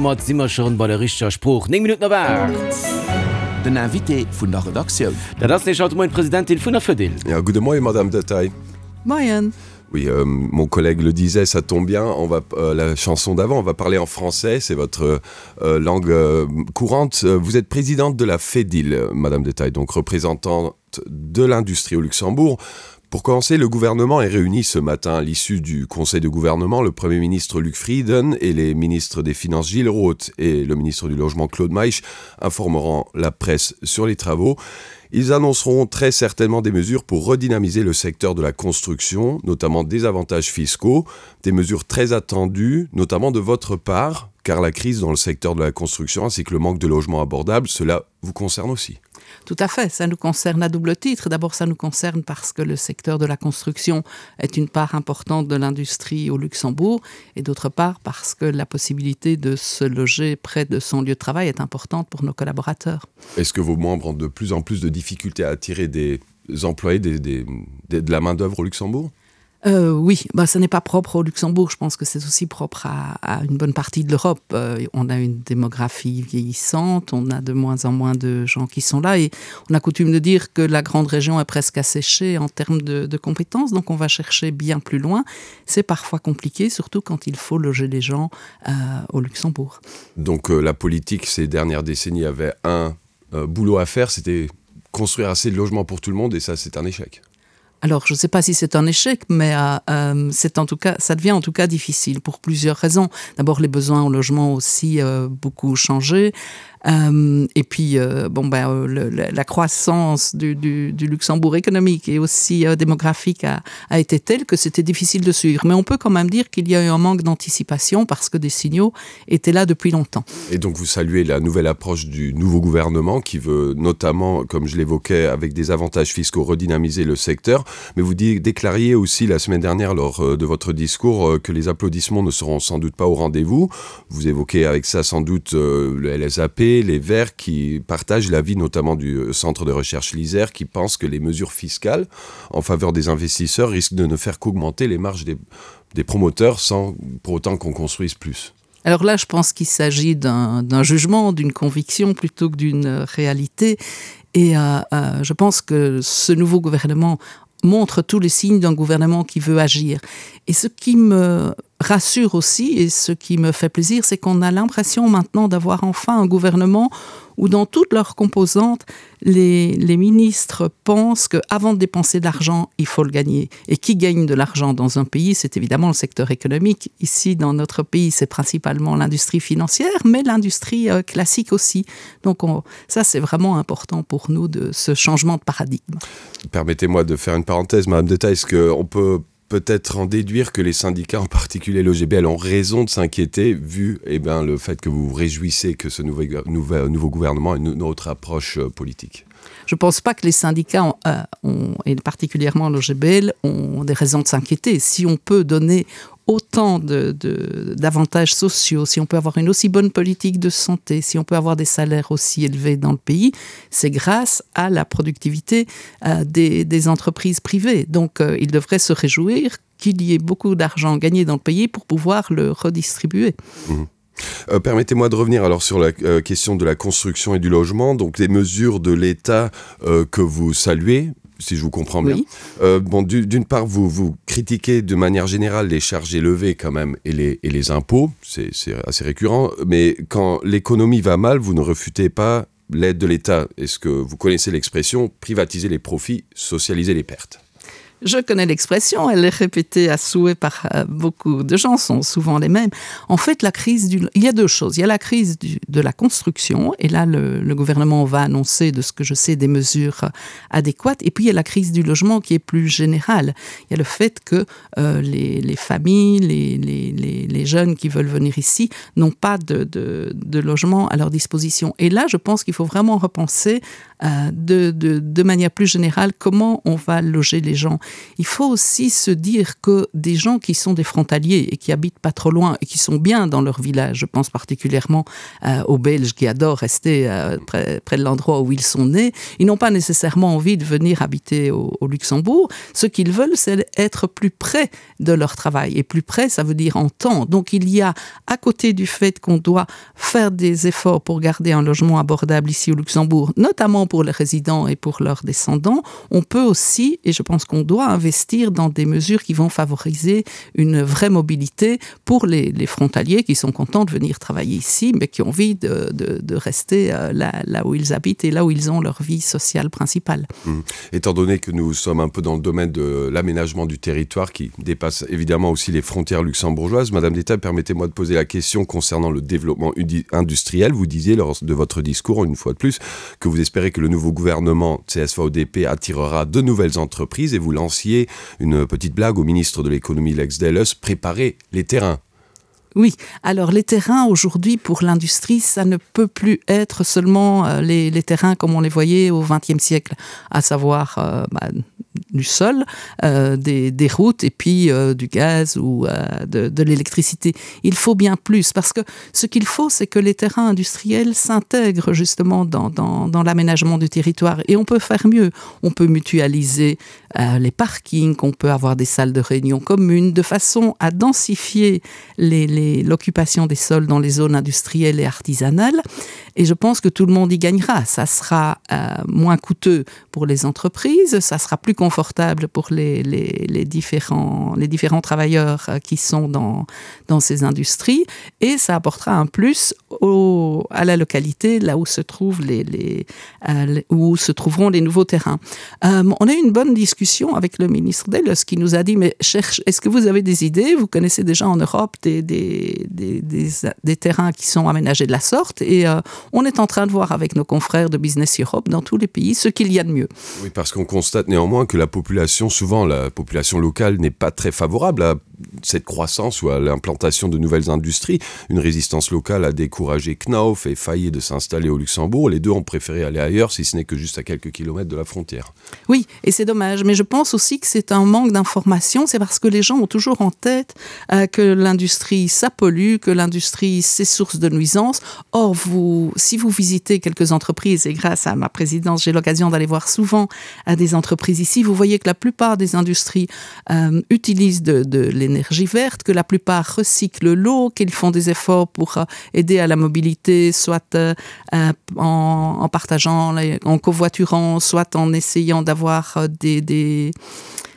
Domat si mer schonn bei der richteger Sprooch. 9 Minutten op 8. Den Invité vun der Redaktioun. Dat ass nämlech haut de Moien d'Presidentin vun der Fedil. Ja, gudde Moien, Madame Detaille. Moien. Oui, euh, mon collègue le disait, ça tombe bien, on va euh, la chanson d'avant, on va parler en français, c'est votre euh, langue euh, courante. Euh, vous êtes présidente de la FEDIL, Madame Detaille, donc représentante de l'industrie au Luxembourg. Pour commencer, le gouvernement est réuni ce matin à l'issue du conseil de gouvernement, le premier ministre Luc Frieden et les ministres des Finances Gilles Roth et le ministre du Logement Claude Meisch informeront la presse sur les travaux. Ils annonceront très certainement des mesures pour redynamiser le secteur de la construction, notamment des avantages fiscaux, des mesures très attendues, notamment de votre part, car la crise dans le secteur de la construction ainsi que le manque de logements abordables, cela vous concerne aussi. Tout à fait, ça nous concerne à double titre. D'abord, ça nous concerne parce que le secteur de la construction est une part importante de l'industrie au Luxembourg et d'autre part parce que la possibilité de se loger près de son lieu de travail est importante pour nos collaborateurs. Est-ce que vos membres ont de plus en plus de difficultés à attirer des employés des, des, des, de la main d'œuvre au Luxembourg? Euh, oui, bah, ce n'est pas propre au Luxembourg, je pense que c'est aussi propre à, à une bonne partie de l'Europe. Euh, on a une démographie vieillissante, on a de moins en moins de gens qui sont là et on a coutume de dire que la grande région est presque asséchée en termes de, de compétences, donc on va chercher bien plus loin. C'est parfois compliqué, surtout quand il faut loger les gens euh, au Luxembourg. Donc euh, la politique ces dernières décennies avait un euh, boulot à faire, c'était construire assez de logements pour tout le monde et ça c'est un échec. Alors je ne sais pas si c'est un échec, mais euh, euh, c'est en tout cas ça devient en tout cas difficile pour plusieurs raisons. D'abord les besoins au logement aussi euh, beaucoup changé. Euh, et puis euh, bon ben euh, le, la croissance du, du, du Luxembourg économique et aussi euh, démographique a, a été telle que c'était difficile de suivre. Mais on peut quand même dire qu'il y a eu un manque d'anticipation parce que des signaux étaient là depuis longtemps. Et donc vous saluez la nouvelle approche du nouveau gouvernement qui veut notamment, comme je l'évoquais, avec des avantages fiscaux redynamiser le secteur. Mais vous déclariez aussi la semaine dernière lors euh, de votre discours euh, que les applaudissements ne seront sans doute pas au rendez-vous. Vous évoquez avec ça sans doute euh, le LSAP, les Verts qui partagent l'avis notamment du centre de recherche l'Isère qui pense que les mesures fiscales en faveur des investisseurs risquent de ne faire qu'augmenter les marges des, des promoteurs sans pour autant qu'on construise plus. Alors là, je pense qu'il s'agit d'un jugement, d'une conviction plutôt que d'une réalité. Et euh, euh, je pense que ce nouveau gouvernement montre tous les signes d'un gouvernement qui veut agir. Et ce qui me rassure aussi et ce qui me fait plaisir, c'est qu'on a l'impression maintenant d'avoir enfin un gouvernement où dans toutes leurs composantes, les, les ministres pensent qu'avant de dépenser de l'argent, il faut le gagner. Et qui gagne de l'argent dans un pays, c'est évidemment le secteur économique. Ici, dans notre pays, c'est principalement l'industrie financière, mais l'industrie euh, classique aussi. Donc on, ça, c'est vraiment important pour nous de ce changement de paradigme. Permettez-moi de faire une parenthèse, Madame Deta, est-ce qu'on peut peut-être en déduire que les syndicats, en particulier l'OGBL, ont raison de s'inquiéter vu eh bien, le fait que vous vous réjouissez que ce nouveau, nouveau, nouveau gouvernement ait une autre approche euh, politique Je ne pense pas que les syndicats, ont, euh, ont, et particulièrement l'OGBL, ont des raisons de s'inquiéter. Si on peut donner autant d'avantages sociaux, si on peut avoir une aussi bonne politique de santé, si on peut avoir des salaires aussi élevés dans le pays, c'est grâce à la productivité euh, des, des entreprises privées. Donc euh, ils devraient se réjouir qu'il y ait beaucoup d'argent gagné dans le pays pour pouvoir le redistribuer. Mmh. Euh, Permettez-moi de revenir alors sur la euh, question de la construction et du logement, donc les mesures de l'État euh, que vous saluez, si je vous comprends bien. Oui. Euh, bon, d'une part, vous, vous critiquez de manière générale les charges élevées quand même et les, et les impôts, c'est assez récurrent, mais quand l'économie va mal, vous ne refutez pas l'aide de l'État. Est-ce que vous connaissez l'expression privatiser les profits, socialiser les pertes? Je connais l'expression, elle est répétée à souhait par euh, beaucoup de gens, sont souvent les mêmes. En fait, la crise du... il y a deux choses. Il y a la crise du, de la construction, et là, le, le gouvernement va annoncer, de ce que je sais, des mesures euh, adéquates. Et puis, il y a la crise du logement qui est plus générale. Il y a le fait que euh, les, les familles, les, les, les, les jeunes qui veulent venir ici n'ont pas de, de, de logement à leur disposition. Et là, je pense qu'il faut vraiment repenser euh, de, de, de manière plus générale comment on va loger les gens. Il faut aussi se dire que des gens qui sont des frontaliers et qui habitent pas trop loin et qui sont bien dans leur village, je pense particulièrement euh, aux Belges qui adorent rester euh, près, près de l'endroit où ils sont nés, ils n'ont pas nécessairement envie de venir habiter au, au Luxembourg. Ce qu'ils veulent, c'est être plus près de leur travail et plus près, ça veut dire en temps. Donc il y a à côté du fait qu'on doit faire des efforts pour garder un logement abordable ici au Luxembourg, notamment pour les résidents et pour leurs descendants, on peut aussi et je pense qu'on doit investir dans des mesures qui vont favoriser une vraie mobilité pour les, les frontaliers qui sont contents de venir travailler ici, mais qui ont envie de, de, de rester euh, là, là où ils habitent et là où ils ont leur vie sociale principale. Mmh. Étant donné que nous sommes un peu dans le domaine de l'aménagement du territoire qui dépasse évidemment aussi les frontières luxembourgeoises, Madame d'État, permettez-moi de poser la question concernant le développement industriel. Vous disiez lors de votre discours, une fois de plus, que vous espérez que le nouveau gouvernement CSVDP attirera de nouvelles entreprises et vous lanciez une petite blague au ministre de l'économie Lex Delles, préparer les terrains. Oui, alors les terrains aujourd'hui pour l'industrie, ça ne peut plus être seulement euh, les, les terrains comme on les voyait au XXe siècle, à savoir euh, bah, du sol, euh, des, des routes et puis euh, du gaz ou euh, de, de l'électricité. Il faut bien plus parce que ce qu'il faut, c'est que les terrains industriels s'intègrent justement dans, dans, dans l'aménagement du territoire et on peut faire mieux. On peut mutualiser euh, les parkings, on peut avoir des salles de réunion communes de façon à densifier l'occupation des sols dans les zones industrielles et artisanales. Et je pense que tout le monde y gagnera. Ça sera euh, moins coûteux pour les entreprises, ça sera plus confortable pour les, les, les, différents, les différents travailleurs euh, qui sont dans, dans ces industries et ça apportera un plus au, à la localité là où se trouvent les, les, euh, où se trouveront les nouveaux terrains. Euh, on a eu une bonne discussion avec le ministre Delles qui nous a dit mais cherche est-ce que vous avez des idées vous connaissez déjà en Europe des, des, des, des, des terrains qui sont aménagés de la sorte et euh, on est en train de voir avec nos confrères de Business Europe dans tous les pays ce qu'il y a de mieux. Oui, parce qu'on constate néanmoins que la population souvent la population locale n'est pas très favorable à cette croissance ou à l'implantation de nouvelles industries. Une résistance locale a découragé Knauf et failli de s'installer au Luxembourg. Les deux ont préféré aller ailleurs si ce n'est que juste à quelques kilomètres de la frontière. Oui, et c'est dommage, mais je pense aussi que c'est un manque d'information, c'est parce que les gens ont toujours en tête euh, que l'industrie ça pollue, que l'industrie c'est source de nuisances. Or vous si vous visitez quelques entreprises et grâce à ma présidence, j'ai l'occasion d'aller voir souvent à des entreprises ici, vous voyez que la plupart des industries euh, utilisent de, de l'énergie verte, que la plupart recyclent l'eau, qu'ils font des efforts pour euh, aider à la mobilité, soit euh, euh en, en partageant, en covoiturant, soit en essayant d'avoir euh, des, des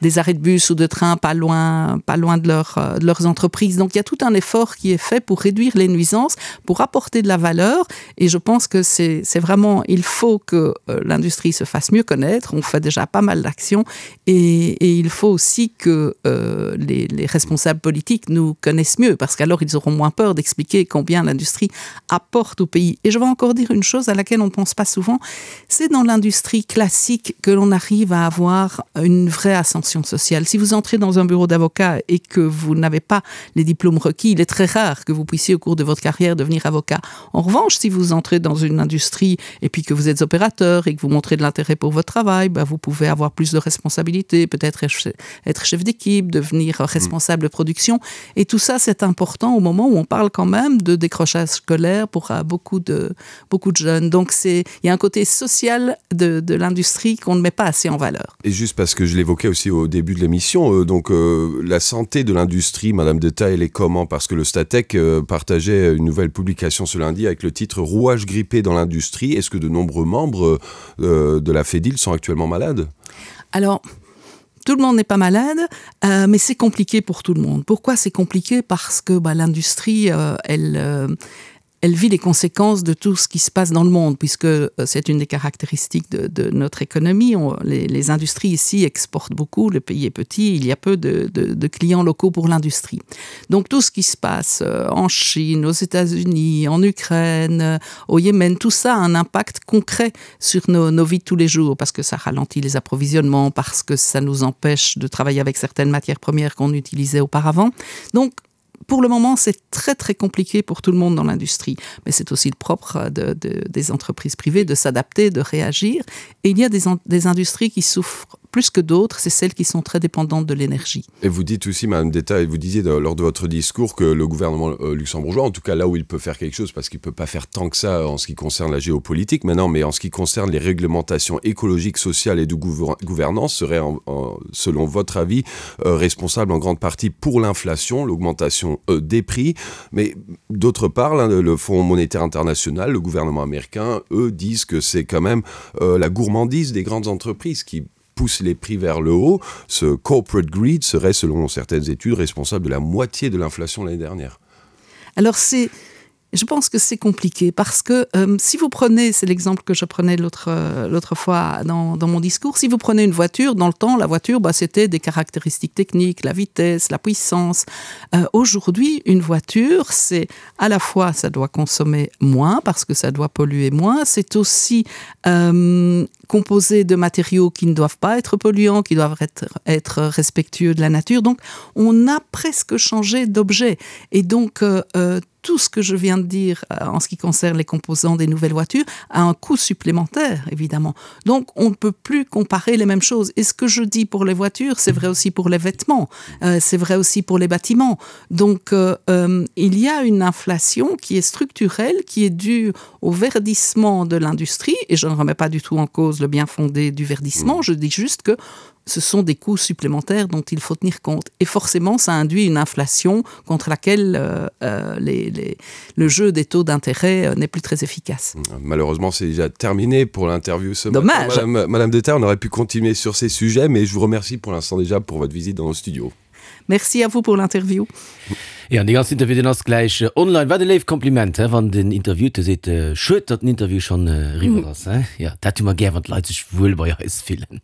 des arrêts de bus ou de train pas loin, pas loin de, leur, euh, de leurs entreprises. Donc il y a tout un effort qui est fait pour réduire les nuisances, pour apporter de la valeur et je pense que c'est vraiment il faut que euh, l'industrie se fasse mieux connaître, on fait déjà pas mal d'actions et, et il faut aussi que euh, les, les responsables politiques nous connaissent mieux parce qu'alors ils auront moins peur d'expliquer combien l'industrie apporte au pays. Et je vais encore dire une chose à laquelle on ne pense pas souvent, c'est dans l'industrie classique que l'on arrive à avoir une vraie ascension sociale. Si vous entrez dans un bureau d'avocat et que vous n'avez pas les diplômes requis, il est très rare que vous puissiez au cours de votre carrière devenir avocat. En revanche, si vous entrez dans une industrie et puis que vous êtes opérateur et que vous montrez de l'intérêt pour votre travail, ben vous pouvez avoir plus de responsabilités, peut-être être chef d'équipe, devenir responsable de production. Et tout ça, c'est important au moment où on parle quand même de décrochage scolaire pour euh, beaucoup de, beaucoup de jeunes. Donc il y a un côté social de, de l'industrie qu'on ne met pas assez en valeur. Et juste parce que je l'évoquais aussi au début de l'émission, euh, donc euh, la santé de l'industrie, Madame de Taille, elle est comment Parce que le Statec euh, partageait une nouvelle publication ce lundi avec le titre Rouage grippé dans l'industrie. Est-ce que de nombreux membres euh, de la Fédil sont actuellement malades Alors, tout le monde n'est pas malade, euh, mais c'est compliqué pour tout le monde. Pourquoi c'est compliqué Parce que l'industrie, euh, elle, euh, elle vit les conséquences de tout ce qui se passe dans le monde, puisque euh, c'est une des caractéristiques de, de notre économie. On, les, les industries ici exportent beaucoup, le pays est petit, il y a peu de, de, de clients locaux pour l'industrie. Donc tout ce qui se passe euh, en Chine, aux États-Unis, en Ukraine, euh, au Yémen, tout ça a un impact concret sur nos, nos vies de tous les jours, parce que ça ralentit les approvisionnements, parce que ça nous empêche de travailler avec certaines matières premières qu'on utilisait auparavant. Donc, pour le moment, c'est très très compliqué pour tout le monde dans l'industrie. Mais c'est aussi le propre de, de, des entreprises privées de s'adapter, de réagir. Et il y a des, des industries qui souffrent plus que d'autres, c'est celles qui sont très dépendantes de l'énergie. Et vous dites aussi, Madame d'État, et vous disiez de, lors de votre discours que le gouvernement euh, luxembourgeois, en tout cas là où il peut faire quelque chose, parce qu'il ne peut pas faire tant que ça en ce qui concerne la géopolitique maintenant, mais en ce qui concerne les réglementations écologiques, sociales et de gouvernance, serait, en, en, selon votre avis, euh, responsable en grande partie pour l'inflation, l'augmentation euh, des prix. Mais d'autre part, le Fonds monétaire international, le gouvernement américain, eux disent que c'est quand même euh, la gourmandise des grandes entreprises qui pousse les prix vers le haut. Ce corporate greed serait, selon certaines études, responsable de la moitié de l'inflation l'année dernière. Alors c'est Je pense que c'est compliqué parce que euh, si vous prenez c'est l'exemple que je prenais l'autre euh, l'autre fois dans, dans mon discours si vous prenez une voiture dans le temps la voiture bah, c'était des caractéristiques techniques la vitesse la puissance euh, aujourd'hui une voiture c'est à la fois ça doit consommer moins parce que ça doit polluer moins c'est aussi euh, composé de matériaux qui ne doivent pas être polluants qui doivent être être respectueux de la nature donc on a presque changé d'objet et donc euh, euh tout ce que je viens de dire euh, en ce qui concerne les composants des nouvelles voitures a un coût supplémentaire évidemment. Donc on ne peut plus comparer les mêmes choses. Et ce que je dis pour les voitures, c'est vrai aussi pour les vêtements, euh, c'est vrai aussi pour les bâtiments. Donc euh, euh, il y a une inflation qui est structurelle, qui est due au verdissement de l'industrie et je ne remets pas du tout en cause le bien fondé du verdissement, mmh. je dis juste que ce sont des coûts supplémentaires dont il faut tenir compte. Et forcément, ça induit une inflation contre laquelle euh, euh, les, les, le jeu des taux d'intérêt euh, n'est plus très efficace. Malheureusement, c'est déjà terminé pour l'interview ce Dommage. matin. Madame, Madame Deter, on aurait pu continuer sur ces sujets, mais je vous remercie pour l'instant déjà pour votre visite dans nos studios. Merci à vous pour l'interview. Jo, an dee ganzen Interview, deen ass gläich online. Wat e léift Kompliment, he, wann den Interviewte seet, Schued, datt den Interview schonn eriwwer ass, he. Jo, dat hu mer gär, wann d'Leit sech wuel bei eis fillen.